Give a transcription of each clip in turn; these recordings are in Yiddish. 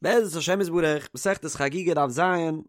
בעזרת השם יתברך, מסכת חגיגה דף ז,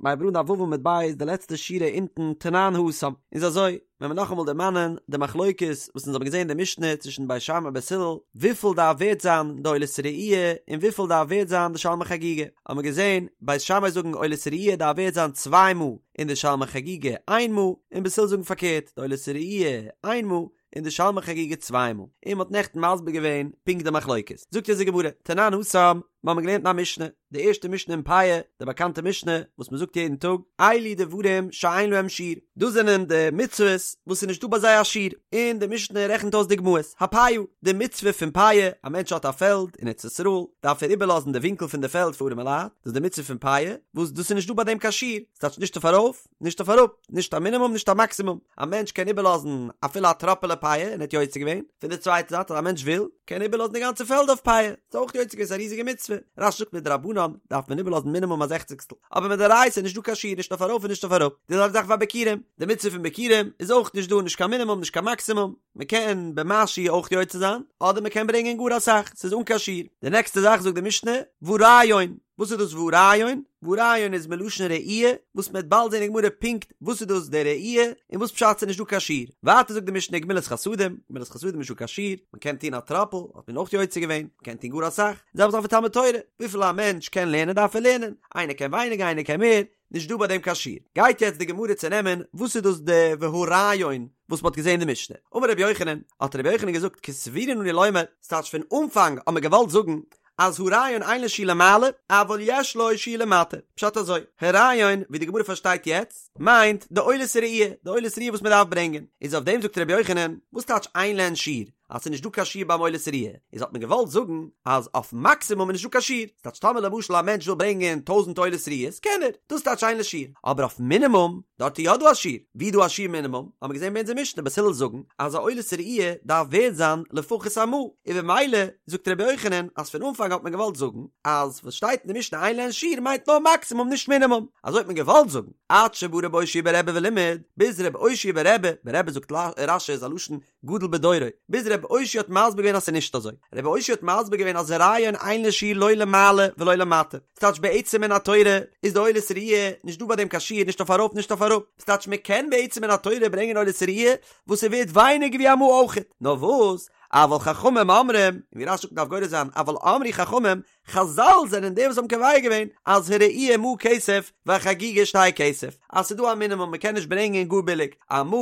מ'הייבט אן דף ו' עמוד ב', די לעצטע שורה אונטן, תנן התם. איז אזוי, ווען מיר נאכאמאל דערמאנען די מחלוקת וואס אונז האבן געזען אין די משנה צווישן בית שמאי און בית הלל, וויפיל דארף ווערט זיין די עולת ראי' און וויפיל דארף ווערט זיין די שלמי חגיגה, האבן מיר געזען, בית שמאי זאגן עולת ראי' דארף ווערט זיין צוויי מעה, און די שלמי חגיגה איין מעה, און בית הלל זאגן פארקערט, די עולת ראי' איין מעה, און די שלמי חגיגה צוויי מעה, און מ'האט נעכטן מסביר געווען פונקט די מחלוקת. זאגט אונז די גמרא, תנן התם, מיר האבן געלערנט אין א משנה, די ערשטע משנה אין פאה, די באקאנטע משנה וואס מ'זאגט יעדן טאג, אלו דברים שאין להם שיעור, דאס זענען די מצוות וואס איז נישטא ביי זיי א שיעור, און די משנה רעכנט אויס דוגמאות, הפאה, די מצוה פון פאה, א מענטש האט א פעלד אין ארץ ישראל, דארף ער איבערלאזן די ווינקל פון די פעלד פאר ארימע לייט, דאס איז די מצוה פון פאה, וואס דאס איז נישטא ביי דעם קיין שיעור, ס'טייטש נישט אויף ארויף, נישט אויף אראפ, נישט א מינימום נישט א מאקסימום, א מענטש קען איבערלאזן אפילו א טראפעלע פאה און ער האט יוצא געווען, פון די צווייטע זייט אז א מענטש וויל, קען ער איבערלאזן די גאנצע פעלד אויף פאה, ס'איז אויך יוצא געווען, ס'איז א ריזיגע מצוה, רש"י זאגט מדרבנן דארף מען איבערלאזן מינימום א זעכציגסטל, אבער מדאורייתא איז נישט דא קיין שיעור נישט אויף ארויף און נישט אויף אראפ, די זעלבע זאך והביכורים, די מצוה פון ביכורים איז אויך נישט דא נישט קיין מינימום נישט קיין מאקסימום, מען קען במשהו אויך יוצא זיין, אדער מען קען ברענגען גאר אסאך, ס'איז אן קיין שיעור. די נעקסטע זאך זאגט די משנה, והריון, וואס איז דאס והריון? והריון איז מלשון ראי', וואס מ'וועט באלד זען אין גמרא פונקט וואס איז דאס די ראי', און וואס פשט ס'איז נישט דא קיין שיעור. ווייטער זאגט די משנה גמילות חסדים, גמילות חסדים איז נישט דא קיין שיעור, מ'קען טון א טראפל, האט מען אויך יוצא געווען, מ'קען טון גאר אסאך, די זעלבע זאך ותלמוד תורה, וויפיל א מענטש קען לערנען דארף ער לערנען, איינער קען ווייניגער איינער קען מער, נישט דא ביי דעם קיין שיעור. גייט יעצט די גמרא צונעמען וואס איז דאס די והריון וואס מ'האט געזען אין די משנה. אמר רבי יוחנן, האט רבי יוחנן געזאגט כסבורין אנו לומר, ס'טייטש פון אנפאנג האט מען געוואלט זאגן אז הריון אין לו שיעור למעלה, אבל יש לו שיעור למטה. פשט אזוי, הריון, ווי די גמרא פארשטייט יעצט, מיינט די עולת ראי', די עולת ראי' וואס מ'דארף ברענגען. איז אויף דעם זאגט רבי יוחנן, וואס טייטש אין להן שיעור? אז ס'איז נישט דא קיין שיעור ביים עולת ראי', איז האט מען געוואלט זאגן אז אויף מאקסימום איז נישט דא קיין שיעור, ס'טייטש טאמער למשל א מענטש וויל ברענגען טויזענט עולת ראיות קען ער, דאס טייטש אין לו שיעור, אבער אויף מינימום, דארט איז יא דא א שיעור, ווי איז דא א שיעור מינימום, האט מען געזען ביי אונזער משנה בית הלל זאגן אז א עולת ראי' דארף ווערד זיין לפחות א מעה, און במילא זאגט רבי יוחנן אז פון אנפאנג האט מען געוואלט זאגן אז וואס שטייט אין די משנה אין להן שיעור מיינט נאר מאקסימום נישט מינימום, אזוי האט מען געוואלט זאגן, עד שבא רבי אושעיא ברבי ולימד, ביז רבי אושעיא ברבי, ברבי זאגט רש"י איז א לשון גדול בדורו, ביז רבי אושעיא האט מסביר געווען אז ס'איז נישט אזוי. רבי אושעיא האט מסביר געווען אז הריון אין לו שיעור לא למעלה ולא למטה. ס'טייטש בעצם מן התורה איז די עולת ראי' נישט דא ביי דעם קיין שיעור נישט אויף ארויף נישט אויף אראפ. ס'טייטש מ'קען בעצם מן התורה ברענגען עולת ראי' וואס ס'ווערט ווייניגער ווי א מעה אויכעט. נאר וואס? אבל חכמים אומרים, און ווי רש"י זאגט מ'דארף גורס זיין אבל אמרו חכמים, חזל זענען די וואס האבן קובע געווען אז הראי' מעה כסף והחגיגה שתי כסף, אז ס'איז דא א מינימום מ'קען נישט ברענגען גאר ביליג, א מעה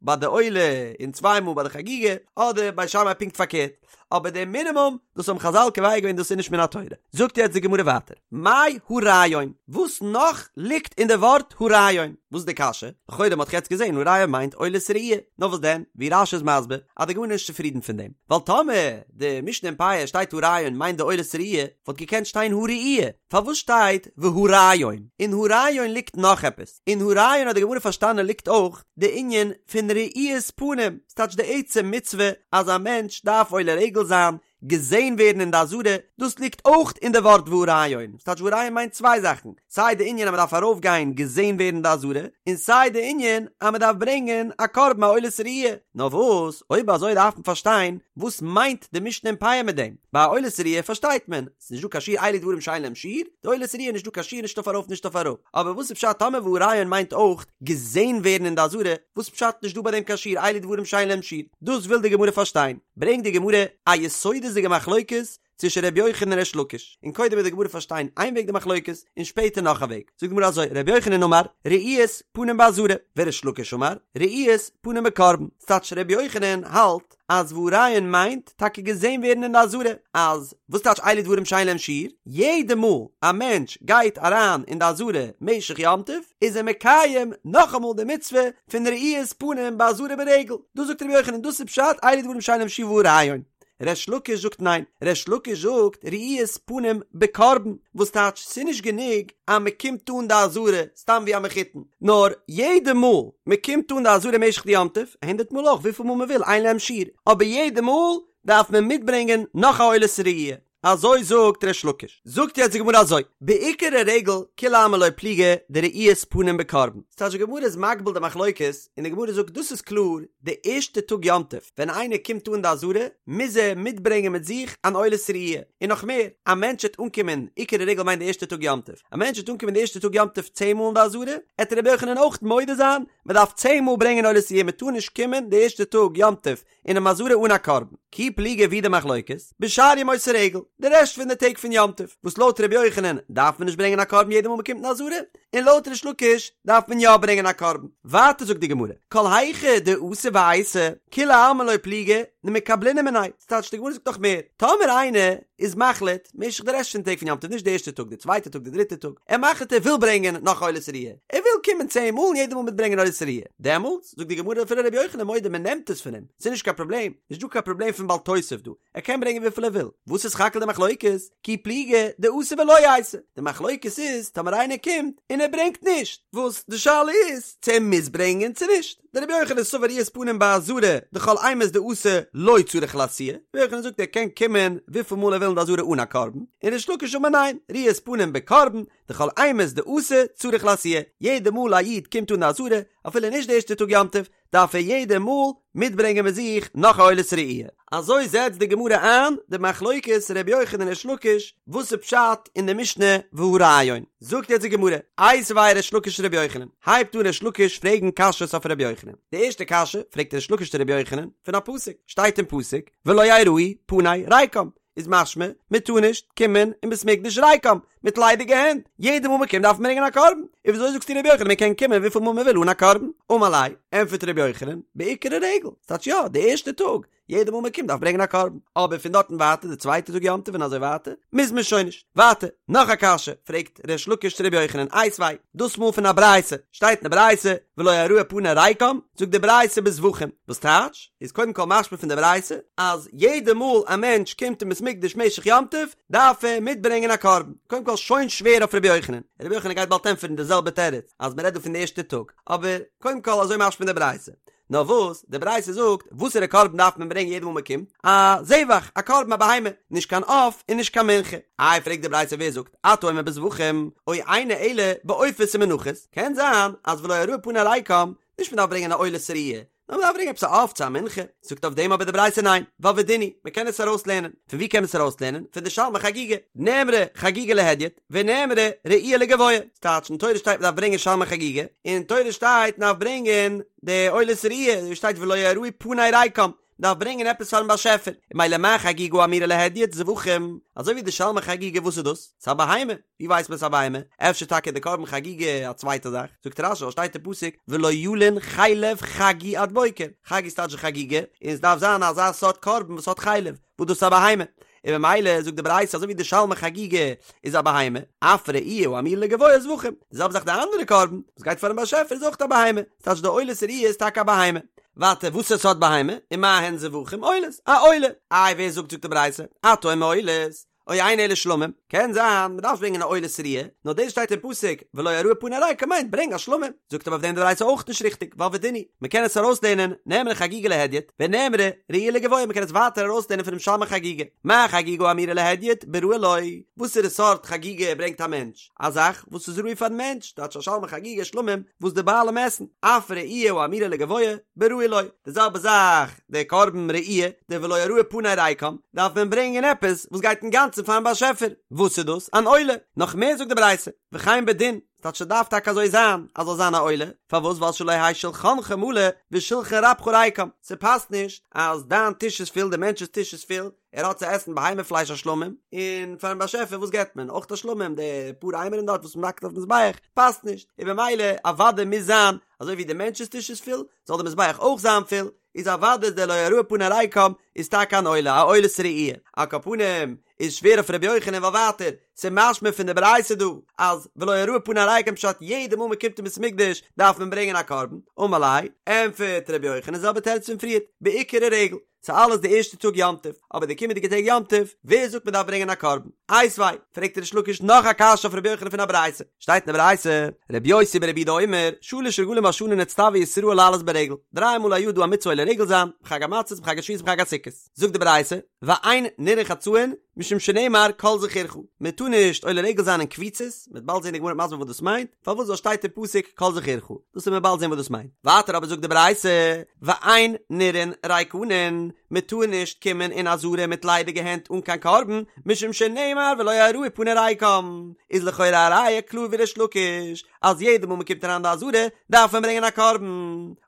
ביי די עולה און צוויי מעה ביי די חגיגה, אדער בית שמאי פונקט פארקערט, אבער די מינימום דאס האבן חזל קובע געווען דאס איז נישט מן התורה. זאגט יעצט די גמרא ווייטער, מאי הריון, וואס נאך ליגט אין די ווארט הריון? וואס איז די קשיא? לכאורה מ'האט דאך יעצט געזען הריון מיינט עולת ראי', נאר וואס דען, ווי רש"י איז מסביר, אז די גמרא איז נישט צופרידן פון דעם, ווייל טאמער די משנה אין פאה שטייט הריון מיינט די עולת ראי', וואלט געקענט שטיין הראי', פארוואס שטייט והריון? אין הריון ליגט נאך עפעס, אין הריון האט די גמרא פארשטאנען ליגט אויך די ענין פון ראיית פנים, ס'טייטש די עצם מצוה אז א מענטש דארף עולה רגל זיין, געזען ווערן אין די עזרה, דאס ליגט אויך אין די ווארט והריון, ס'טייטש והריון מיינט צוויי זאכן, סיי די ענין אז מ'דארף ארויפגיין געזען ווערן אין די עזרה, און סיי די ענין אז מ'דארף ברענגען א קרבן א עולת ראי'. נאר וואס, אויב אזוי דארף מען פארשטיין וואס מיינט די משנה אין פאה מיט דעם. ביי א עולת ראי' פארשטייט מען, ס'איז נישט דא קיין שיעור אלו דברים שאין להם שיעור, די עולת ראי' נישט דא קיין שיעור נישט אויף ארויף נישט אויף אראפ. אבער וואס איז פשט טאמער והריון מיינט אויך געזען ווערן אין די עזרה, וואס פשט נישט דא ביי דעם קיין שיעור אלו דברים שאין להם שיעור? דאס וויל די גמרא פארשטיין. ברענגט די גמרא א יסודות'דיגע מחלוקת צווישן ר' יוחנן און ריש לקיש, און קודם וועט די גמרא פארשטיין איין וועג די מחלוקת, און שפעטער נאך א וועג. זאגט די גמרא אזוי, ר' יוחנן אמר, ראיית פנים בעזרה, וריש לקיש אמר, ראיית פנים בקרבן. ס'טייטש ר' יוחנן האלט אז והריון מיינט טאקע געזען ווערן אין די עזרה, אז וואס טייטש אלו דברים שאין להם שיעור? יעדע מאל א מענטש גייט אריין אין די עזרה משך יום טוב, איז ער מקיים נאכאמאל די מצוה פון ראיית פנים בעזרה ברגל. דאס זאגט ר' יוחנן, דאס איז פשט אלו דברים שאין להם שיעור והריון. ריש לקיש זאגט ניין, ריש לקיש זאגט ראיית פנים בקרבן, וואס טייטש ס'נישט גענוג אז מ'קומט אן די עזרה סתם ווי א מחותן, נאר יעדע מאל מ'קומט אן די עזרה משך די יום טוב, הונדערט מאל אויך וויפיל מאל מ'וויל אין להם שיעור, אבער יעדע מאל דארף מען מיטברענגען נאך א עולת ראי'. אזוי זאגט ריש לקיש. זאגט יעצט די גמרא אזוי, בעיקר הרגל כולי עלמא לא פליגי דראיית פנים בקרבן. ס'טייטש די גמרא איז מגביל די מחלוקת, און די גמרא זאגט דאס איז קלאר, די ערשטע טאג יום טוב ווען איינער קומט אן די עזרה מוז ער מיטברענגען מיט זיך אן עולת ראי', און נאך מער, א מענטש וועט אנקומען, עיקר הרגל מיינט די ערשטע טאג יום טוב, א מענטש וועט אנקומען די ערשטע טאג יום טוב צען מאל אין די עזרה, עט רבי יוחנן אויך מודה זיין, מען דארף צען מאל ברענגען עולת ראי', מען טאר נישט קומען די ערשטע טאג יום טוב אינעם עזרה אן א קרבן. כי פליגי ווי די מחלוקת, בשאר ימות הרגל, די רעשט פון די טעג פון יום טוב, וואס לויט רבי יוחנן דארף מען נישט ברענגען א קרבן יעדע מאל מען קומט אין עזרה, און לויט ריש לקיש דארף מען יא ברענגען א קרבן. ווייטער זאגט די גמרא, כל היכא דאתא ואייתי, כולי עלמא לא פליגי, דמקבלינן מיניה, ס'טייטש די גמרא זאגט נאך מער, טאמער איינער איז מחליט, משך די רעשט פון טעג פון יום טוב, נישט די ערשטע טאג, די צווייטע טאג, די דריטע טאג, ער מחליט ער וויל ברענגען נאך עולת ראיה, ער וויל קומען צען מאל און יעדע מאל מיטברענגען עולת ראיה, דעמאלטס, זאגט די גמרא אפילו רבי יוחנן מודה מען נעמט עס פון אים, ס'איז נישט קיין פראבלעם, נישט דא קיין פראבלעם פון בל תוסיף דא, ער קען ברענגען וויפיל ער וויל, וואס איז סך הכל די מחלוקת? כי פליגי דאתא ולא אייתי, די מחלוקת איז טאמער איינער קומט און ער ברענגט נישט, וואס די שאלה איז צו ער מוז ברענגען צו נישט, דרבי יוחנן סבר ראיית פנים בעזרה דכל אימת דאתא לא צריך לאתויי, רבי יוחנן זאגט ער קען קומען וויפיל מאל ער וויל אין די עזרה אן א קרבן, און ריש לקיש אמר ניין, ראיית פנים בקרבן, דכל אימת דאתא צריך לאתויי, יעדע מאל א איד קומט אן די עזרה, אפילו נישט די ערשטע טאג יום טוב, דארף ער יעדע מאל מיטברענגען מיט זיך נאך א עולת ראי'. אזוי זעצט די גמרא איין די מחלוקת ר' יוחנן און ריש לקיש, וואס איז פשט אין די משנה והרעיון. זאגט יעצט די גמרא, איתיביה ריש לקיש לר' יוחנן, הייבט אן ריש לקיש פרעגן קשיות אויף ר' יוחנן. די ערשטע קשיא פרעגט ריש לקיש צו ר' יוחנן פון א פסוק, שטייט אין פסוק ולא יראו פני ריקם, איז משמע מען טאר נישט קומען אין בית מקדש ריקם, מיט ליידיגע הענט, יעדע מאל מען קומט דארף מען ברענגען א קרבן, און וויאזוי זאגסטו רבי יוחנן מען קען קומען וויפיל מאל מען וויל אן א קרבן? אמר ליה, ענטפערט רבי יוחנן, בעיקר הרגל, ס'טייטש יא, די ערשטע טאג, יעדע מאל מען קומט דארף ברענגען א קרבן, אבער פון דארטן ווייטער די צווייטע טאג יום טוב און אזוי ווייטער, מוז מען שוין נישט. ווייטער, נאך א קשיא, פרעגט ריש לקיש צו רבי יוחנן, איתיביה, דאס מאל פון א ברייתא, שטייט אין די ברייתא, ולא יראו פני ריקם, זאגט די ברייתא בזבחים, וואס טייטש, איז קודם כל משמע פון די ברייתא, אז יעדע מאל א מענטש קומט אין בית מקדש משך יום טוב, דארף ער מיטברענגען א קרבן. קודם כל שוין שווער אויף רבי יוחנן, רבי יוחנן גייט באלד ענטפערן די זעלבע תירוץ, אז מען רעדט דא פון די ערשטע טאג, אבער קודם כל אזוי משמע פון די ברייתא. נאר וואס, די ברייתא זאגט, וואסערע קרבן דארף מען ברענגען יעדע מאל מען קומט? א זבח, א קרבן א בהמה, נישט קיין עוף און נישט קיין מנחה. איי פרעגט די ברייתא ווער זאגט, אתה אומר בזבחים, או אינו אלא בעופות ומנחות, קען זיין אז ולא יראו פני ריקם, נישט מען דארף ברענגען א עולת ראיה, נאר מען דארף ברענגען עפעס א עוף צו א מנחה, זאגט אויף דעם אבער די ברייתא ניין, ווייל ודין הוא, מען קען עס ארויסלערנען, פון ווי קען מען עס ארויסלערנען? פון די שלמי חגיגה, נאמרה חגיגה להדיוט, ונאמרה ראי' לגבוה, ס'טייטש אין תורה שטייט מען דארף ברענגען שלמי חגיגה, און אין תורה שטייט מען דארף ברענגען די עולת ראי', ווי שטייט ולא יראו פני ריקם, דארף ברענגען עפעס פארן באשעפער, און ממילא מה חגיגה האמורה להדיוט זבחים, אזוי ווי די שלמי חגיגה וואס איז דאס? ס'איז א בהמה, ווי ווייסט מען ס'איז א בהמה? אפשר טאקע די קרבן חגיגה א צווייטע זאך? זאגט רש"י ווייל שטייט אין פסוק ולא ילין חלב חגי עד בוקר, חגי איז טייטש חגיגה, און עס דארף זיין אזא סארט קרבן וואס האט חלב, וואס דאס איז א בהמה, און ממילא זאגט די ברייתא אזוי ווי די שלמי חגיגה איז א בהמה, אף ראי' האמורה לגבוה זבחים, די זעלבע זאך די אנדערע קרבן וואס גייט פארן באשעפער איז אויך א בהמה, ס'טייטש די עולת ראי' איז טאקע א בהמה. ווייטער וואסער סארט בהמה, ומה הן זבחים עולות, א עולה, איי ווער זאגט זאגט די ברייתא, אתה אומר עולות, או אינו אלא שלמים, קען זיין מ'דארף נישט ברענגען א עולת ראיה, נאר דאס שטייט אין פסוק ולא יראו פני ריקם מיינט ברענג א שלמים, זאגט אבער אויף דעם די ברייתא אויך נישט ריכטיג, ווייל ודין הוא, מ'קען עס ארויסלערנען, נאמרה חגיגה להדיוט, ונאמרה ראי' לגבוה מ'קען עס ווייטער ארויסלערנען פונעם שלמי חגיגה, מה חגיגה האמורה להדיוט בראוי לו, וואסערע סארט חגיגה ברענגט א מענטש? א זאך וואס איז ראוי פארן מענטש, טייטש א שלמי חגיגה שלמים וואס די בעלים עסן, אף ראי' האמורה לגבוה בראוי לו, די זעלבע זאך די קרבן ראי', די ולא יראו פני ריקם, דארף מען ברענגען עפעס וואס גייט אינגאנצן פארן באשעפער, וואס איז דאס? אן עולה, נאך מער זאגט די ברייתא, וכן בדין, ס'טייטש ס'דארף טאקע אזוי זיין אז זאל זיין א עולה, פארוואס ווייל שלא יהא שלחנך מלא ושלחן רבך ריקם, ס'פאסט נישט אז דיין טיש איז פול די מענטש'ס טיש איז פול, ער האט צו עסן בהמה פלייש א שלמים, און פארן באשעפער וואס געבט מען? אויך א שלמים, די פאר אימורים דארט וואס מ'האקט אויפן מזבח, פאסט נישט, און במילא אוודאי מוז זיין אזוי ווי די מענטש'ס טיש איז פול, זאל די מזבח אויך זיין פול, איז אוודאי איז דער לא יראו פני ריקם איז טאקע אן עולה, א עולת ראי'. על כל פנים, איז שווער אויף ר' יוחנן ווייל ווייטער, ס'איז משמע פון די ברייתא דא, אז ולא יראו פני ריקם פשט יעדע מאל מ'קומט אין בית המקדש דארף מען ברענגען א קרבן, אמר ליה, ענטפערט ר' יוחנן זעלבע תירוץ פון פריערט, בעיקר הרגל. ס'איז אלעס די ערשטע טאג יום טוב, אבער די קומענדיגע טעג יום טוב, ווער זאגט מ'דארף ברענגען א קרבן? איתיביה, פרעגט ריש לקיש נאך א קשיא אויף רבי יוחנן פון א ברייתא, שטייט אין די ברייתא, רבי יוסי ברבי יהודה אומר, שלש רגלים בשנה נצטוו ישראל לעלות ברגל, דריי מאל א יאר דא א מצוה עולה רגל זיין, בחג המצות בחג השבועות בחג הסוכות. זאגט די ברייתא, ואין נראין חצאין, משום שנאמר כל זכורך, מען טאר נישט עולה רגל זיין אין קבוצות, מען וועט באלד זען די גמרא מסביר וואס דאס מיינט, פארוואס ווייל שטייט אין פסוק כל זכורך, דאס וועט מען באלד זען וואס דאס מיינט. ווייטער אבער זאגט די ברייתא, ואין נראין ריקנין, מען טאר נישט קומען אין עזרה מיט ליידיגע הענט אן קיין קרבן, משום שנאמר ולא יראו פני ריקם, איז לכאורה א ראיה קלאר ווי ריש לקיש, אז יעדע מאל מען קומט אריין די עזרה דארף מען ברענגען א קרבן,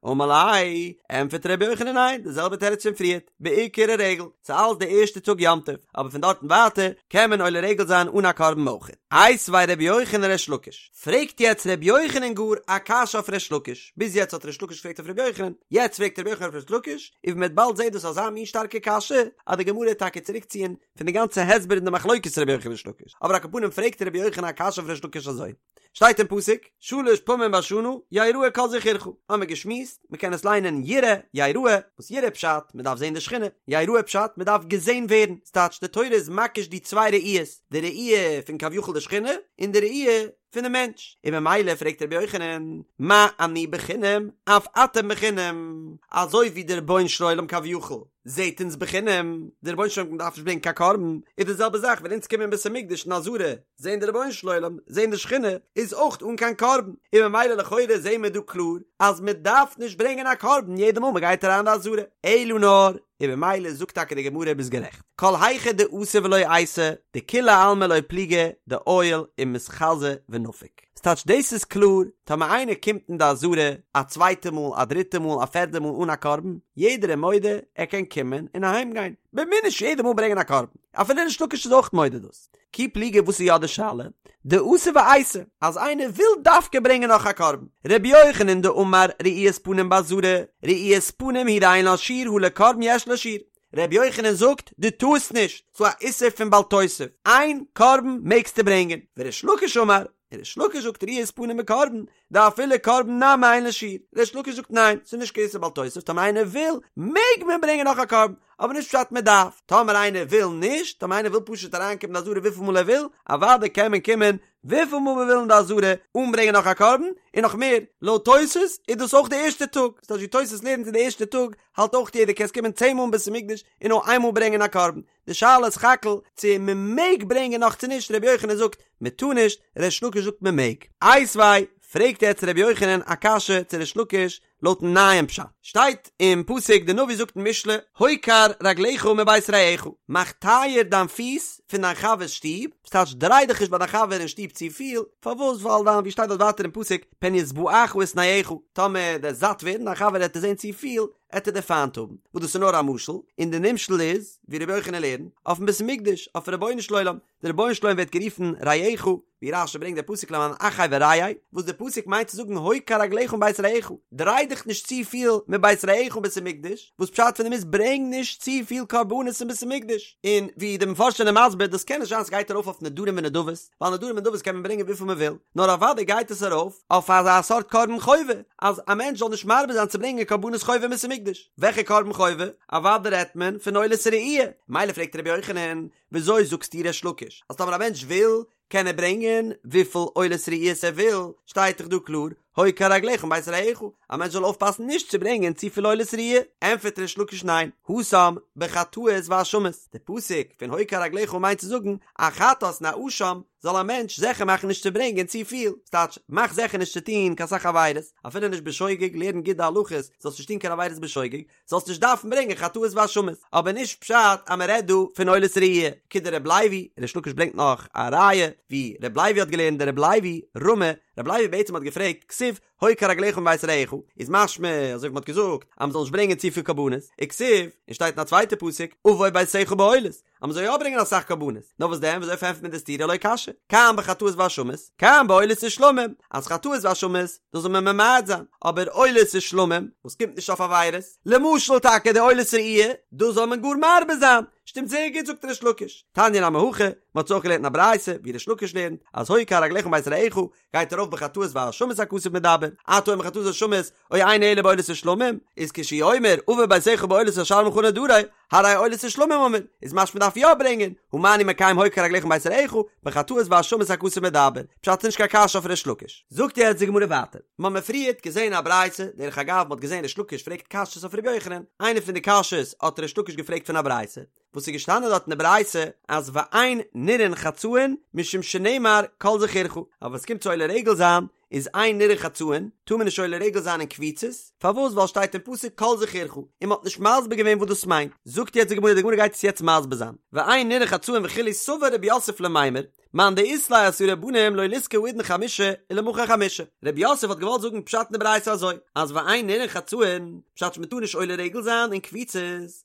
אמר ליה, ענטפערט רבי יוחנן ניין, די זעלבע תירוץ פון פריערט, בעיקר הרגל, ס'איז אלעס די ערשטע טאג יום טוב, אבער פון דארטן ווייטער קען מען עולה רגל זיין אן א קרבן אויך. איתיביה רבי יוחנן ריש לקיש, פרעגט יעצט רבי יוחנן גאר א קשיא אויף ריש לקיש, ביז יעצט האט ריש לקיש געפרעגט אויף רבי יוחנן, יעצט פרעגט רבי יוחנן אויף ריש לקיש, און ווי מ'וועט באלד זעהן דאס אזא מין שטארקע קשיא, אז די גמרא וועט טאקע צוריקציען פון די גאנצע הסבר אין די מחלוקת רבי יוחנן ריש לקיש, אבער על כל פנים פרעגט רבי יוחנן א קשיא אויף ריש לקיש אזוי. שטייט אין פסוק, שלש פעמים בשנה יראה כל זכורך, האמיר געשמועסט, מען קען עס ליינען יראה, יראה, וואס יראה פשט, מען דארף זען די שכינה, יראה פשט, מען דארף געזען ווערן, ס'טייטש די תורה איז מקיש די צוויי ראיות, די ראי' פון כביכול די שכינה, און די ראי' פונעם מענטש, און ממילא פרעגט רבי יוחנן, מה אני בחינם, אף אתם בחינם, אזוי ווי דער רבונו של עולם כביכול זעט אונז בחינם, דער רבונו של עולם דארף נישט ברענגען קיין קרבן, איז די זעלבע זאך ווען אונז קומען אין בית המקדש אין עזרה, זעהן די רבונו של עולם, זעהן די שכינה, איז אויך אן קיין קרבן, און ממילא לכאורה זעהן מיר דא קלאר אז מען דארף נישט ברענגען א קרבן יעדע מאל מען גייט אריין אין די עזרה, אלא נאר, און ממילא זאגט טאקע די גמרא ביסט גערעכט, כל היכא דאתי ולא אייתי, דכולי עלמא לא פליגי דעייל ומתחזי ונפיק. ס'טייטש דאס איז קלאר, טאמער איינער קומט אין די עזרה א צווייטע מאל, א דריטע מאל, א פערדע מאל אן א קרבן, יעדער איז מודה ער קען קומען און אהיים גיין, מען מוז נישט יעדע מאל ברענגען א קרבן, אפילו ריש לקיש איז אויך מודה דאס. כי פליגי וואס איז יא די שאלה? דאתי ואייתי, אז איינער וויל דווקא ברענגען נאך א קרבן. רבי יוחנן דאמר ראיית פנים בעזרה, ראיית פנים הוא דאין לה שיעור הא לקרבן יש לה שיעור. רבי יוחנן זאגט, דו טארסט נישט, ס'דא א איסור פון בל תוסיף, איין קרבן מעגסטו ברענגען. וריש לקיש אמר, און ריש לקיש זאגט ראיית פנים בקרבן, דאפילו קרבן נמי אין לה שיעור. ריש לקיש זאגט ניין, ס'איז נישט קיין איסור בל תוסיף, טאמער איינער וויל, מעג מען ברענגען נאך א קרבן, אבער נישט פשט מען דארף. טאמער איינער וויל נישט, טאמער איינער וויל פשוט אריינקומען אין די עזרה וויפיל מאל ער וויל, אוודאי קען מען קומען וויפיל מאל מען וויל אין די עזרה אן ברענגען נאך א קרבן, און נאך מער, לויט תוס' איז דאס אויך די ערשטע טאג, ס'טייטש ווי תוס' לערנט אין די ערשטע טאג, האלט אויך יעדער קענסט קומען צען מאל אין בית המקדש און נאר איין מאל ברענגען א קרבן, די שאלה איז סך הכל צו מען מעג ברענגען נאך צו נישט, רבי יוחנן זאגט מען טאר נישט, ריש לקיש זאגט מען מעג. איתיביה, פרעגט יעצט רבי יוחנן א קשיא צו ריש לקיש לויטן נייעם פשט, שטייט אין פסוק די נביא זאגט אין משלי הוקר רגליך מבית רעך, מאך טייער דיין פיס פון דיין חבר'ס שטוב, וואס טייטש דריי דיך נישט ביי דיין חבר אין שטוב צופיל, פארוואס ווייל דיין ווי שטייט דארט ווייטער אין פסוק פן ישבעך ושנאך, טאמער דו'סט זאט ווערן דיין חבר העט דיר זען צופיל, עט ער דיר פיינט האבן, וואס דאס איז נאר א משל, און די נמשל איז, ווי רבי יוחנן לערנט, אויפן בית המקדש, אויפן רבונו של עולם, דער רבונו של עולם ווערט גערופן רעך, ווי רש"י ברענגט דער פסוק למען אחי ורעי, וואס דער פסוק מיינט צו זאגן הוקר רגליך מבית רעך, דריי דיך נישט צופיל מבית רעך אין בית המקדש, וואס פשט פון דעם איז ברענג נישט צופיל קרבנות אין בית המקדש, און ווי די מפרשים זענען מסביר דאס קען נישט זיין ס'גייט ארויף אויף נדרים ונדבות, ווייל נדרים ונדבות קען מען ברענגען וויפיל מען וויל, נאר אוודאי גייט עס ארויף אויף אזא סארט קרבן חובה, אז א מענטש זאל נישט מרבה זיין צו ברענגען קרבנות חובה אין בית המקדש. וועלכע קרבן חובה? אוודאי רעדט מען פון עולת ראי'. מילא פרעגט רבי יוחנן, וויאזוי זאגסטו ריש לקיש אז טאמער א מענטש וויל קען ער ברענגען וויפיל עולת ראיות ער וויל, שטייט דאך דא קלאר הוקר רגליך מבית רעך, א מענטש זאל אויפפאסן נישט צו ברענגען צופיל עולת ראיה, ענטפערט ריש לקיש ניין, התם בחטאות ואשמות, די פסוק פון הוקר רגליך מיינט צו זאגן א חטאת און א אשם זאל א מענטש זיכער מאכן נישט צו ברענגען צופיל, ס'טייטש מאך זיכער נישט צו טון קיין סאך עבירות, אפילו נישט בשוגג, לערן גוט די הלכות, זאלסט נישט טון קיין עבירות בשוגג, זאלסט נישט דארפן ברענגען חטאות ואשמות, אבער נישט פשט אז מען רעדט דא פון עולת ראי', כדרבי לוי, ריש לקיש ברענגט נאך א ראיה ווי רבי לוי האט געלערנט דרבי לוי רמי, רבי לוי בעצם האט געפרעגט כתיב הוקר רגליך מבית רעך, איז משמע אזוי ווי מען האט געזאגט אז מען זאל נישט ברענגען צופיל קרבנות, וכתיב, און שטייט אין א צווייטע פסוק אבוא ביתך בעולות, אז מען זאל יא ברענגען אסאך קרבנות, נאר וואס דען וויאזוי פארענטפערט מען די סתירה לא קשיא, כאן בחטאות ואשמות, כאן בעולות ושלמים, אז חטאות ואשמות, דאס זאל מען ממעט זיין, אבער עולות ושלמים, וואס קומט נישט אויף עבירות, למשל טאקע די עולת ראי', דאס זאל מען גאר מרבה זיין, שטימט זייער גוט זאגט ריש לקיש, תניא נמי הכי, מען האט עס אויך געלערנט אין א ברייתא, ווי ריש לקיש לערנט, אז הוקר רגליך מבית רעך, גייט ארויף בחטאות ואשמות הכתוב מדבר. אתה אומר חטאות ואשמות, או אינו אלא בעולות ושלמים, איז כשהוא אומר עבר ביתך בעולות אשלמך נדרי, הרי עולות ושלמים אמור, איז משמע מ'דארף יא ברענגען, הא מה אני מקיים הוקר רגליך מבית רעך, בחטאות ואשמות הכתוב מדבר, פשט ס'נישט קיין קשיא אויף ריש לקיש. זאגט יעצט די גמרא ווייטער, מ'האמיר פריערט געזען א ברייתא, דרך אגב מ'האט געזען ריש לקיש פרעגט קשיות אויף ר' יוחנן, איינע פון די קשיות האט ריש לקיש געפרעגט פון א ברייתא, וואס איז געשטאנען דארט אין די ברייתא אז ואין נראין חצאין משום שנאמר כל זכורך, אבער ווען ס'קומט צו עולה רגל זיין איז אין נראין חצאין, טאר מען נישט עולה רגל זיין אין קבוצות, פארוואס ווייל שטייט אין פסוק כל זכורך, און מ'האט נישט מסביר געווען וואס דאס מיינט, זאגט יעצט די גמרא, די גמרא גייט עס יעצט מסביר זיין, ואין נראין חצאין וכו' סבר רב יוסף למימר, מאן דאית ליה עשרה בנים לא ליזכי האידנא חמשה ולמחר חמשה, רב יוסף האט געוואלט זאגן פשט אין די ברייתא אזוי, אז ואין נראין חצאין, פשט מ'טאר נישט עולה רגל זיין אין קבוצות,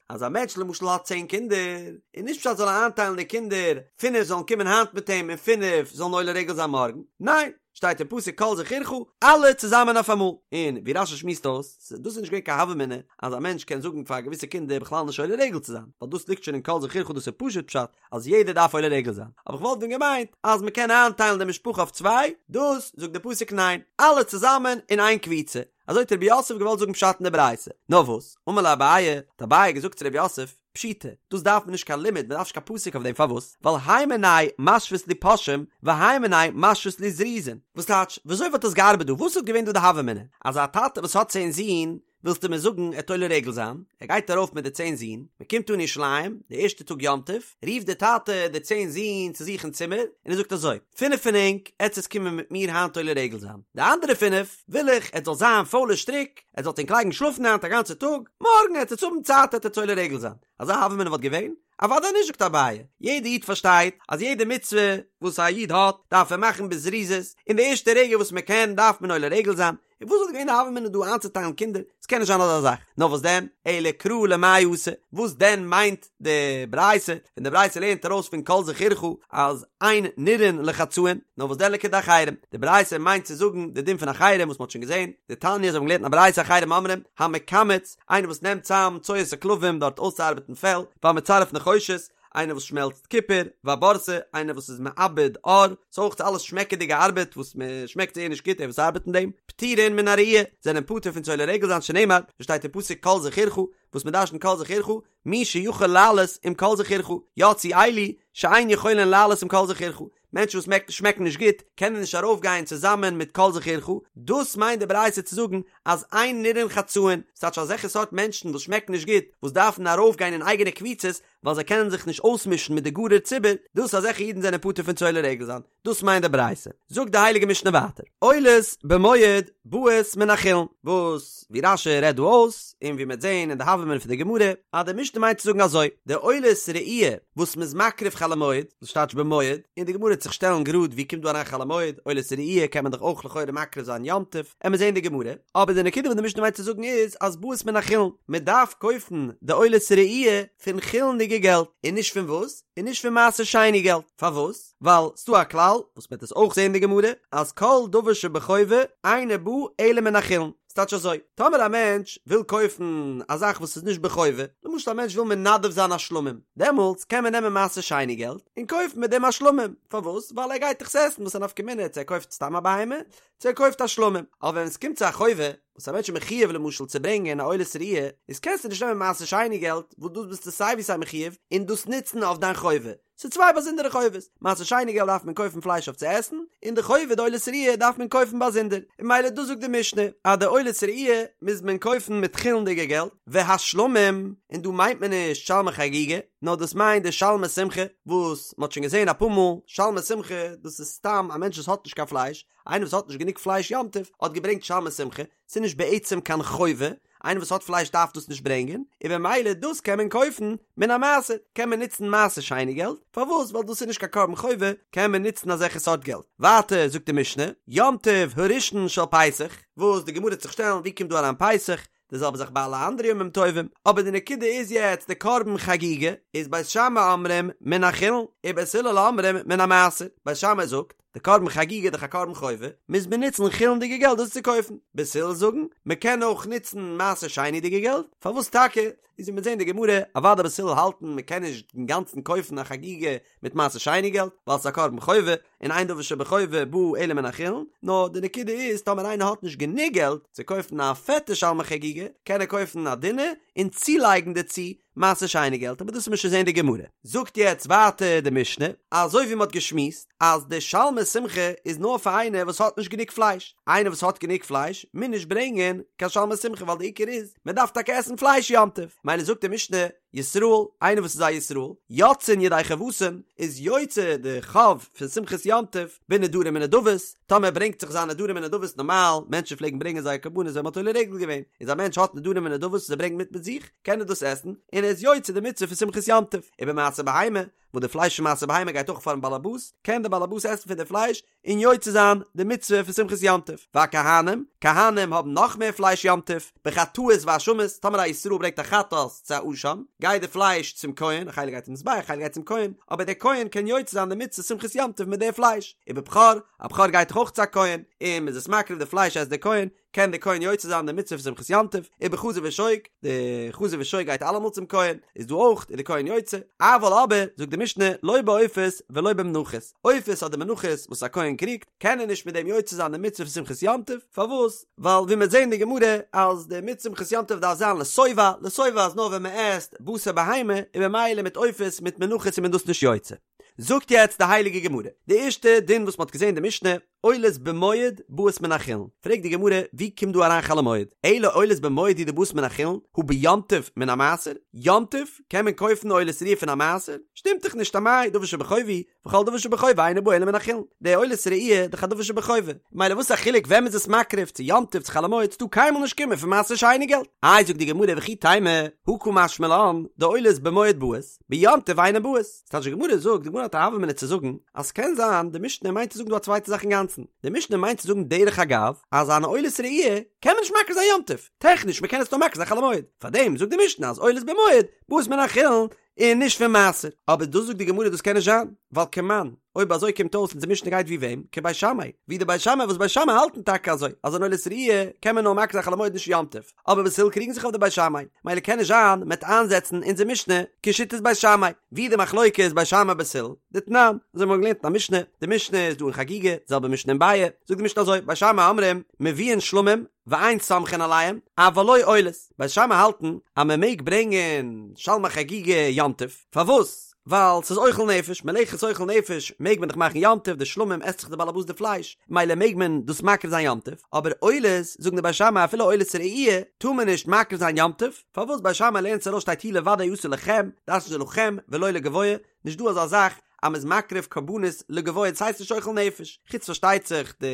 אז א מענטש למשל האט צען קינדער, איז נישט פשט זאל ער איינטיילן די קינדער, פינף זאלן קומען היינט מיט אים און פינף זאלן עולה רגל זיין מארגן, ניין, שטייט אין פסוק כל זכורך, אלע צוזאמען אויף אמאל, און ווי רש"י שמועסט אויס, דאס איז נישט געווען קיין הוה אמינא אז א מענטש קען זאגן פאר געוויסע קינדער בכלל נישט עולה רגל צו זיין, ווייל דאס ליגט שוין אין כל זכורך דאס איז פשוט פשט אז יעדער דארף עולה רגל זיין, אבער כ'וואלט ווען געמיינט אז מ'קען איינטיילן די משפחה אויף צוויי, דאס זאגט די פסוק ניין, אלע צוזאמען אין איין קבוצה, אזוי האט רב יוסף געוואלט זאגן פשט אין די ברייתא, נאר וואס, אמר ליה אביי, האט אביי געזאגט צו רב יוסף, פשיטא, דאס דארף מען נישט קיין לימוד, מען דארף נישט קיין פסוק אויף דעם, פארוואס? ווייל הי מינייהו משוית להו פושעים, והי מינייהו משוית להו זריזין. וואס טייטש, וויאזוי וואלט עס געארבעט דא, וואס וואלט געווען דא די הוה אמינא? אז א טאטע וואס האט צען זין, ווילסטו מיר זאגן ער וועט עולה רגל זיין, ער גייט ארויף מיט די צען זין, מען קומט אן ירושלים, די ערשטע טאג יום טוב, רופט דער טאטע די צען זין צו זיך אין צימער, און ער זאגט אזוי, פינף פון ענק עטס עטס קומען מיט מיר היינט עולה רגל זיין, די אנדערע פינף וויל איך עטס זאל זיין פוילע שטריק, עטס זאלט ענק לייגן שלאפן היינט א גאנצע טאג, מארגן עטס עטס האבן צייט עטס עטס עולה רגל זיין. אזא הוה אמינא וואלט געווען? אוודאי נישט זאגט אביי, יעדע איד פארשטייט אז יעדע מצוה וואס א איד האט דארף ער מאכן בזריזות, אין די ערשטע רגע וואס מען קען דארף מען עולה רגל זיין, און וואס וואלט געווען די הוה אמינא דא איינצוטיילן קינדער? עס קען נישט זיין אזא זאך. נאר וואס דען? אלא קרא למאי אתא, וואס דען מיינט די ברייתא ווען די ברייתא לערנט ארויס פון כל זכורך אז אין נראין לחצאין, נאר וואס דען לכדאחרים, די ברייתא מיינט צו זאגן די דין פון אחרים וואס מען האט שוין געזען, דתניא זיי האבן געלערנט אין א ברייתא אחרים אומרים, המקמץ, איינער וואס נעמט צאם צואת הכלבים דארט אויסצוארבעטן פעל, והמצרף נחושת, איינער וואס שמעלצט קופער, והבורסי, איינער וואס איז מעבד עור, ס'איז אויך אלעס שמעקעדיגע ארבעט וואס מען שמעקט זייער נישט גוט דער וואס ארבעט אין דעם, פטורין מן הראי', זענען פטור פון צו עולה רגל זיין שנאמר, ווי שטייט אין פסוק כל זכורך, וואס מען דרש'נט כל זכורך, מי שיכול לעלות עם כל זכורך, יצאו אלו שאין יכולין לעלות עם כל זכורך, מענטשן וואס שמעקן נישט גוט קענען נישט ארויפגיין צוזאמען מיט כל זכורך, דאס מיינט די ברייתא צו זאגן אז אין נראין חצאין, ס'טייטש אזעלכע סארט מענטשן וואס שמעקן נישט גוט, וואס דארפן ארויפגיין אין אייגענע קבוצות, ווייל זיי קענען זיך נישט אויסמישן מיט די גארער ציבור, דאס אזעלכע אידן זענען פטור פון צו עולה רגל זיין, דאס מיינט די ברייתא. זאגט די הייליגע משנה ווייטער, עולות במועד באות מן החולין, וואס ווי רש"י רעדט דא אויס, און ווי מ'וועט זען אין די הוה אמינא פון די גמרא, אז די משנה מיינט צו זאגן אזוי, די עולת ראי' וואס מ'איז מקריב חול המועד, דאס טייטש במועד, און די גמרא וועט זיך שטעלן גראד ווי קומט דא אריין חול המועד, עולת ראי' קען מען דאך אויך לכאורה מקריב זיין יום טוב, עמיר זען די גמרא, אבער די נקודה וואס די משנה מיינט צו זאגן איז אז באות מן החולין, מען דארף קויפן די עולת ראי' פון חולין'דיגע געלט, און נישט פון וואס? און נישט פון מעשר שני געלט, פארוואס? ווייל ס'דא א כלל, וואס מ'וועט עס אויך זען אין די גמרא, אז כל דבר שבחובה אינו בא אלא מן החולין, ס'טייטש אזוי, טאמער א מענטש וויל קויפן א זאך וואס איז נישט בחובה, למשל א מענטש וויל מנדב זיין א שלמים, דעמאלטס קען מען נעמען מעשר שני געלט און קויפן מיט דעם א שלמים, פארוואס? ווייל ער גייט דאך עס עסן, וואס א נפקא מינה צו ער קויפט סתם א בהמה, צו ער קויפט א שלמים, אבער ווען עס קומט צו א חובה, וואס א מענטש איז מחיוב למשל צו ברענגען א עולת ראי', איז קענסטו נישט נעמען מעשר שני געלט, וואס דאס ביסטו סיי ווי סיי מחיוב, און דאס נוצן אויף דיין חובה. ס'איז צוויי באזונדערע חובות, מעשר שני געלט דארף מען קויפן פלייש אויף צו עסן, און די חובה די עולת ראי' דארף מען קויפן באזונדער, און ממילא דאס זאגט די משנה, אז די עולת ראי' מוז מען קויפן מיט חולין'דיגע געלט, והשלמים, און דא מיינט מען נישט שלמי חגיגה, נאר דאס מיינט די שלמי שמחה, וואס מ'האט שוין געזען אפאר מאל, שלמי שמחה, דאס איז סתם א מענטש וואס האט נישט קיין פלייש, איינער וואס האט נישט גענוג פלייש יום טוב האט געברענגט שלמי שמחה, ס'איז נישט בעצם קיין חובה, איינער וואס האט פלייש דארף דאס נישט ברענגען, און במילא דאס קען מען קויפן מן המעשר, קען מען נוצן מעשר שני געלט, פארוואס? ווייל דאס איז נישט קיין קרבן חובה, קען מען נוצן אזעלכע סארט געלט. ווייטער זאגט די משנה, יום טוב הראשון של פסח, וואס די גמרא וועט זיך שטעלן ווי קומט דא אריין פסח, די זעלבע זאך ביי אלע אנדערע ימים טובים, אבער די נקודה איז יעצט די קרבן חגיגה איז בית שמאי אומרים מן החולין, ובית הלל אומרים מן המעשר, בית שמאי זאגט. די קרבן חגיגה איז דאך א קרבן חובה, מוז מען נוצן חולין'דיגע געלט דאס צו קויפן. בית הלל זאגן, מען קען אויך נוצן מעשר שני'דיגע געלט, פארוואס טאקע? איז ווי מיר זעהן די גמרא, אוודאי בית הלל האלטן מען קען נישט אינגאנצן קויפן א חגיגה מיט מעשר שני געלט, ווייל ס'איז א קרבן חובה, און אין דבר שבחובה בא אלא מן החולין, נאר די נקודה איז טאמער איינער האט נישט גענוג געלט צו קויפן א פעטע שלמי חגיגה, קען ער קויפן א דינע און צולייגן דערצו מעשר שני געלט, אבער דאס וועט מען שוין זעהן די גמרא. זאגט יעצט ווייטער די משנה, אזוי ווי מען האט געשמועסט אז די שלמי שמחה איז נאר פאר איינער וואס האט נישט גענוג פלייש, איינער וואס האט גענוג פלייש מוז נישט ברענגען קיין שלמי שמחה ווייל די עיקר איז מען דארף טאקע עסן פלייש יום טוב, מילא זאגט די משנה, ישראל, איינער וואס איז א ישראל, יוצאין ידי חובתן, איז יוצא די חוב פון שמחת יום טוב, בנדרים ונדבות, טאמער ער ברענגט זיך זיינע נדרים ונדבות נארמאל, מענטשן פלעגן ברענגען זייער קרבנות ווען מען האט עולה רגל געווען, איז א מענטש האט נדרים ונדבות וואס ער ברענגט מיט מיט זיך, קען ער דאס עסן, און ער איז יוצא די מצוה פון שמחת יום טוב. ובמעשר בהמה, וואס די פלייש פון מעשר בהמה גייט אויך פארן באלעבאס, קען דער באלעבאס עסן פון די פלייש, און יוצא זיין די מצוה פון שמחת יום טוב. והכהנים, כהנים האבן נאך מער פלייש יום טוב, בחטאות ואשמות, טאמער א ישראל ברענגט א חטאת צו א אשם, גייט די פלייש צום כהן, א חלק גייט צום מזבח, א חלק גייט צום כהן, אבער דער כהן קען יוצא זיין די מצוה שמחת יום טוב מיט די פלייש. ובבכור, א בכור גייט דאך אויך צו א כהן, און מ'איז עס מקריב די פלייש עסט דער כהן, קען דער כהן יוצא זיין די מצוה פון שמחת יום טוב, ובחזה ושוק, די חזה ושוק גייט אלעמאל צום כהן, איז דא אויך איז די כהן יוצא, אבל אבער, זאגט די משנה, לא בעופות ולא במנחות, עופות אדער מנחות וואס א כהן קריגט, קען ער נישט מיט דעם יוצא זיין די מצוה פון שמחת יום טוב, פארוואס? ווייל ווי מ'וועט זען אין די גמרא, אז די מצוה שמחת יום טוב דארף זיין לשובע, לשובע איז נאר ווען מ'עסט בשר בהמה, און במילא מיט עופות מיט מנחות איז מען דאס נישט יוצא. זאגט יעצט די הייליגע גמרא, די ערשטע דין וואס מ'האט געזען אין די משנה, עולות במועד באות מן החולין, פרעגט די גמרא, ווי קומט דא אריין חול המועד? אלא עולות במועד הוא דבאות מן החולין, הא ביום טוב מן המעשר? יום טוב קען מען קויפן עולת ראיה פון א מעשר? שטימט דאך נישט אמאי דבר שבחובה הוא, וכל דבר שבחובה אינו בא אלא מן החולין, די עולת ראיה איז דאך א דבר שבחובה, מילא וואס א חילוק ווען מ'איז עס מקריב, צו יום טוב צו חול המועד, ס'טאר קיינמאל נישט קומען פון מעשר שני געלט. איי זאגט די גמרא וכי תימא, הא קא משמע לן, דעולות במועד באות, ביום טוב אינן באות. ס'טייטש די גמרא זאגט, די גמרא האט א הוה אמינא צו זאגן, אז ס'קען זיין די משנה מיינט צו זאגן דא א צווייטע זאך אינגאנצן, די משנה מיינט צו זאגן דרך אגב, אז אן עולת ראי' קען מען נישט מקריב זיין יום טוב, טעכניש מ'קען עס נאר מקריב זיין חול המועד, פארדעם זאגט די משנה אז עולות במועד באות מן החולין און נישט פון מעשר, אבער דאס זאגט די גמרא דאס קען נישט זיין, ווייל כמאן, אויב אזוי קומט אויס אונזער משנה גייט ווי וועם? כבית שמאי, ווי די בית שמאי וואס בית שמאי האלטן טאקע אזוי, אז אן עולת ראי' קען מען נאר מקריב זיין חול המועד נישט יום טוב. אבער בית הלל קריגן זיך אויף די בית שמאי, מילא קען נישט זיין מ'עט איינזעצן אונזער משנה כשיטת בית שמאי, ווי די מחלוקת איז בית שמאי בית הלל, דתנן, אזוי האבן מיר געלערנט אין א משנה, די משנה איז דא אין חגיגה, די זעלבע משנה אין ביעא, זאגט די משנה אזוי, בית שמאי אומרים, מביאין שלמים, ואין סומכין עליהם, אבל לא עולות, בית שמאי האלטן אז מען מעג ברענגען שלמי חגיגה יום טוב, פארוואס? ווייל ס'איז אוכל נפש, מלאכת אוכל נפש מעג מען דאך מאכן יום טוב, די שלמים עסט זיך די באלעבאס די פלייש, מילא מעג מען דאס מקריב זיין יום טוב, אבער עולות, זאגן די בית שמאי אפילו עולת ראי' טאר מען נישט מקריב זיין יום טוב, פארוואס בית שמאי לערנט עס ארויס שטייט הוא לבדו יעשה לכם, דרש'נט ער לכם ולא לגבוה, נישט דא אזא זאך אז מ'איז מקריב קרבנות לגבוה דאס הייסט נישט אוכל נפש, חוץ פארשטייט זיך די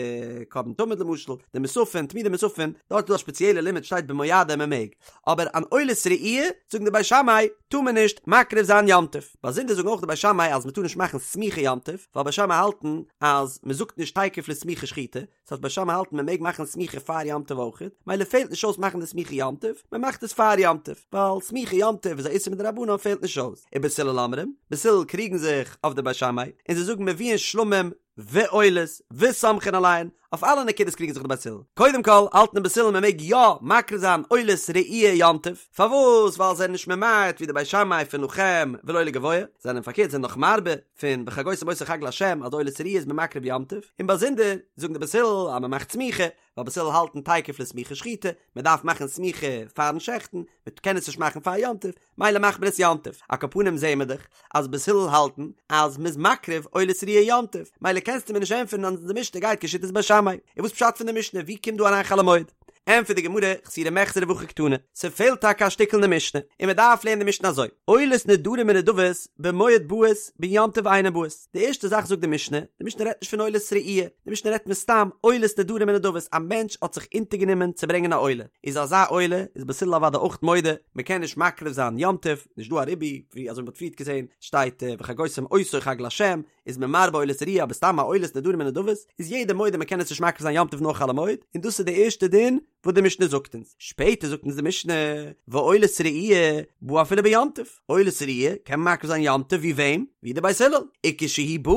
קרבן תמיד למשל, די מוספין, תמידי מוספין, דארט איז דא א ספעציעלע לימוד שטייט במועדים מ'מעג, אבער אן עולת ראי' זאגן די בית שמאי טאר מען נישט מקריב זיין יום טוב, באזונדער זאגן אויך די בית שמאי אז מ'טאר נישט מאכן סמיכה יום טוב, ווייל בית שמאי האלטן אז מ'זאגט נישט תיכף לסמיכה שחיטה, ס'הייסט בית שמאי האלטן מען מעג מאכן סמיכה פאר יום טוב אויכעט, מילא פעלט נישט אויס מאכן די סמיכה יום טוב, מען מאכט עס פאר יום טוב, ווייל סמיכה יום טוב איז א איסור מדרבנן פעלט נישט אויס. ובית הלל אומרים, בית הלל קריגן זיך אויף די בית שמאי, און זיי זאגן מביאין שלמים ועולות וסומכין עליהן, אויף אלע נקודות קריגן זיך די בית הלל. קודם כל האלטן די בית הלל מען מעג יא מקריב זיין עולת ראי' יום טוב, פארוואס? ווייל זיי זענען נישט ממעט ווי די בית שמאי פון לכם ולא לגבוה, זיי זענען פארקערט זענען נאך מרבה, פון וחגותם אותו חג לה' אז עולת ראי' איז מען מקריב יום טוב, און באזונדער זאגן די בית הלל אז מען מאכט סמיכה, ווייל בית הלל האלטן תיכף לסמיכה שחיטה, מען דארף מאכן סמיכה פארן שעכטן, מען קען עס נישט מאכן פאר יום טוב, מילא מאכט מען עס יום טוב, על כל פנים זעהן מיר דאך אז בית הלל האלטן אז מען איז מקריב עולת ראי' יום טוב, מילא קענסטו מיר נישט ענטפערן אז די משנה גייט כשיטת בית שמאי, און וואס פשט פון די משנה ווי קומט דא אריין חול המועד? ענטפערט די גמרא, חסורי מחסרא והכי קתני, ס'פעלט טאקע א שטיקל אין די משנה, און מ'דארף לערנען די משנה אזוי, עולות נדרים ונדבות במועד באות ביום טוב אינן באות, די ערשטע זאך זאגט די משנה, די משנה רעדט נישט פון עולת ראי', די משנה רעדט מסתם עולות נדרים ונדבות, א מענטש האט זיך אונטערגענומען צו ברענגען א עולה, איז אזא עולה איז בית הלל אוודאי אויך מודה, מ'קען נישט מקריב זיין יום טוב, נישט דא א ריבוי, ווי אזוי מ'האט פריערט געזען, שטייט וחגותם אותו חג לה', איז מען מרבה עולת ראיה אבער סתם א עולת נדרים ונדבות איז יעדער מודה מען קען עס נישט מקריב זיין יום טוב נאר חול המועד און דאס איז די ערשטע דין וואס די משנה זאגט אונז שפעטער זאגט אונז די משנה ועולת ראיה באה אפילו ביום טוב עולת ראיה קען מען מקריב זיין יום טוב ווי וועם ווי די בית הלל וכשהיא באה.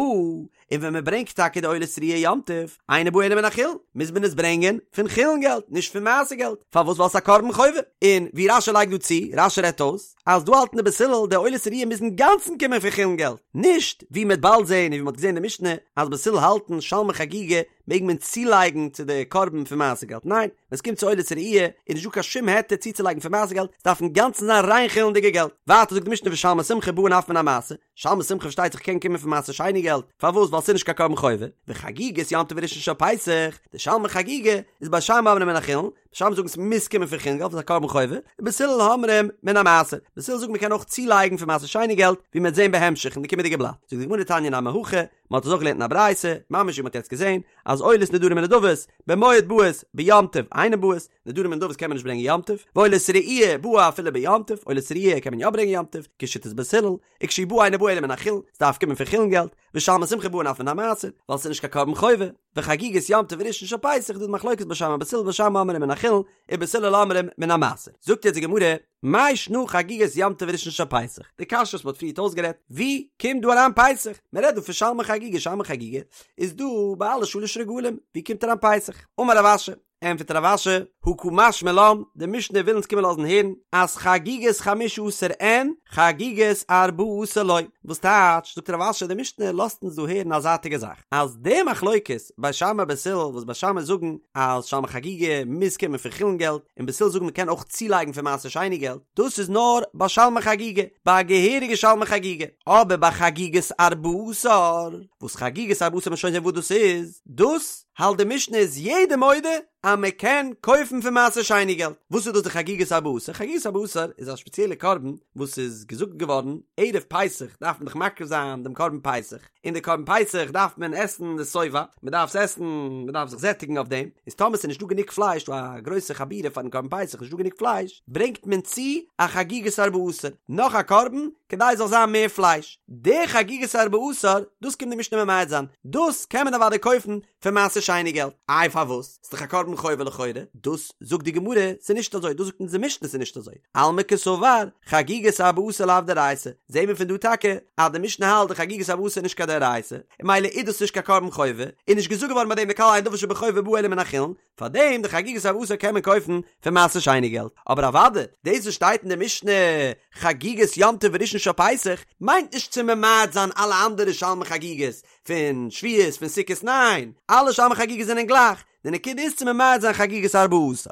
און ווען מען ברענגט טאקע די עולת ראיה יום טוב, אינה באה אלא מן החולין, מוז מען עס ברענגען פון חולין געלט, נישט פון מעשר געלט, פארוואס ווייל ס'איז א קרבן חובה, און ווי רש"י לייגט דא צו, רש"י רעדט אויס, אז דא האלטן די בית הלל די עולת ראיה מוז אינגאנצן קומען פון חולין געלט, נישט ווי מ'עט באלד זען און ווי מ'האט געזען אין די משנה אז בית הלל האלטן שלמי חגיגה מעג מען צולייגן צו די קרבן פון מעשר געלט, ניין, ווען עס קומט צו עולת ראיה איז נישט דא קיין שום היתר צוצולייגן פון מעשר געלט, עס דארף אינגאנצן זיין ריין חולין'דיגע געלט. ווייטער זאגט די משנה ושלמי שמחה באין אף מן המעשר, שלמי שמחה פארשטייט זיך קען קומען פון מעשר שני געלט, פארוואס? ווייל ס'איז נישט קיין קרבן חובה, וחגיגת יום טוב וראשון של פסח, די שלמי חגיגה איז בית שמאי אומרים מן החולין, בית שמאי זאגן ס'מוז קומען פון חולין געלט ווייל ס'איז א קרבן חובה, ובית הלל אומרים מן המעשר, בית הלל זאגן מ'קען אויך צולייגן פון מעשר שני געלט, ווי מ'וועט זען בהמשך אין די קומענדיגע בלאט, זאגט די גמרא תניא נמי הכי, מ'האט עס אויך געלערנט אין א ברייתא, ממש ווי מ'האט יעצט געזען, אז עולות נדרים ונדבות, במועד באות, ביום טוב אינן באות, נדרים און נדבות קען מען נישט ברענגען יום טוב, ועולת ראי' באה אפילו ביום טוב, עולת ראי' קען מען יא ברענגען יום טוב, כשיטת בית הלל, וכשהיא באה אינה באה אלא מן החולין, ס'דארף קומען פון חולין געלט, ושלמי שמחה באין אף מן המעשר, ווייל ס'איז נישט קיין קרבן חובה, וחגיגת יום טוב וראשון של פסח איז דא די מחלוקת בית שמאי בית הלל בית שמאי אומרים מן החולין, ובית הלל אומרים מן המעשר. זאגט יעצט די גמרא, מאי שנא חגיגת יום טוב וראשון של פסח? די קשיא וואס מ'האט פריערט אויסגערעדט, ווי קומט דא אריין פסח? מ'רעדט דא פון שלמי חגיגה, שלמי חגיגה איז דא ביי אלע שלש רגלים, ווי קומט אריין פסח? אמר רב אשי, ענטפערט רב אשי, הא קא משמע לן, די משנה וויל אונז קומען לאזן הערן אז חגיגת חמשה עשר אין, חגיגת ארבעה עשר לא. וואס טייטש, זאגט רב אשי, די משנה לאזט אונז דא הערן א זייטיגע זאך, אז די מחלוקת בית שמאי בית הלל וואס בית שמאי זאגן אז שלמי חגיגה מוז קומען פון חולין געלט, און בית הלל זאגן מען קען אויך צולייגן פון מעשר שני געלט, דאס איז נאר ביי שלמי חגיגה, ביי א געהעריגע שלמי חגיגה, אבער ביי חגיגת ארבעה עשר, וואס חגיגת ארבעה עשר מ'וועט שוין זען וואס דאס איז, דאס האלט די משנה איז יעדער מודה אז מען קען קויפן פון מעשר שני געלט. וואס איז דאס די חגיגת ארבעה עשר? חגיגת ארבעה עשר איז א שפעציעלע קרבן וואס איז געזאגט געווארן ערב פסח דארף מען דאך מקריב זיין דעם קרבן פסח, און די קרבן פסח דארף מען עסן די שובע, מען דארף עס עסן, מען דארף זיך זעטיגן אויף דעם, איז טאמער ס'איז נישטא גענוג פלייש, דא א גרויסע חבורה פארן קרבן פסח נישטא גענוג פלייש, ברענגט מען צו א חגיגת ארבעה עשר, נאך א קרבן, כדי עס זאל זיין מער פלייש. די חגיגת ארבעה עשר, דאס קומט די משנה ממעט זיין, דאס קען מען אוודאי קויפן פון מעשר שני געלט, איי פארוואס? ס'איז דאך א קרבן חובה לכאורה, דאס זאגט די גמרא ס'איז נישט אזוי, דאס זאגט אונז די משנה ס'איז נישט אזוי, אלמא קסבר חגיגת ארבעה עשר לאו דאורייתא, זעהן מיר פון דא טאקע אז די משנה האלט די חגיגת ארבעה עשר איז נישט קיין דאורייתא, און ממילא איז דאס נישט קיין קרבן חובה, איז נישט געזאגט געווארן ביי דעם די כלל אין דבר שבחובה בא אלא מן החולין, פארדעם די חגיגת ארבעה עשר קען מען קויפן פון מעשר שני געלט, אבער אוודאי דאס וואס שטייט אין די משנה חגיגת יום טוב וראשון של פסח מיינט נישט צו ממעט זיין אלע אנדערע שלמי חגיגות פון שבועות פון סוכות ניין, אלע שלמי חגיגות זענען גלייך, די נקודה איז צו ממעט זיין חגיגת ארבעה עשר.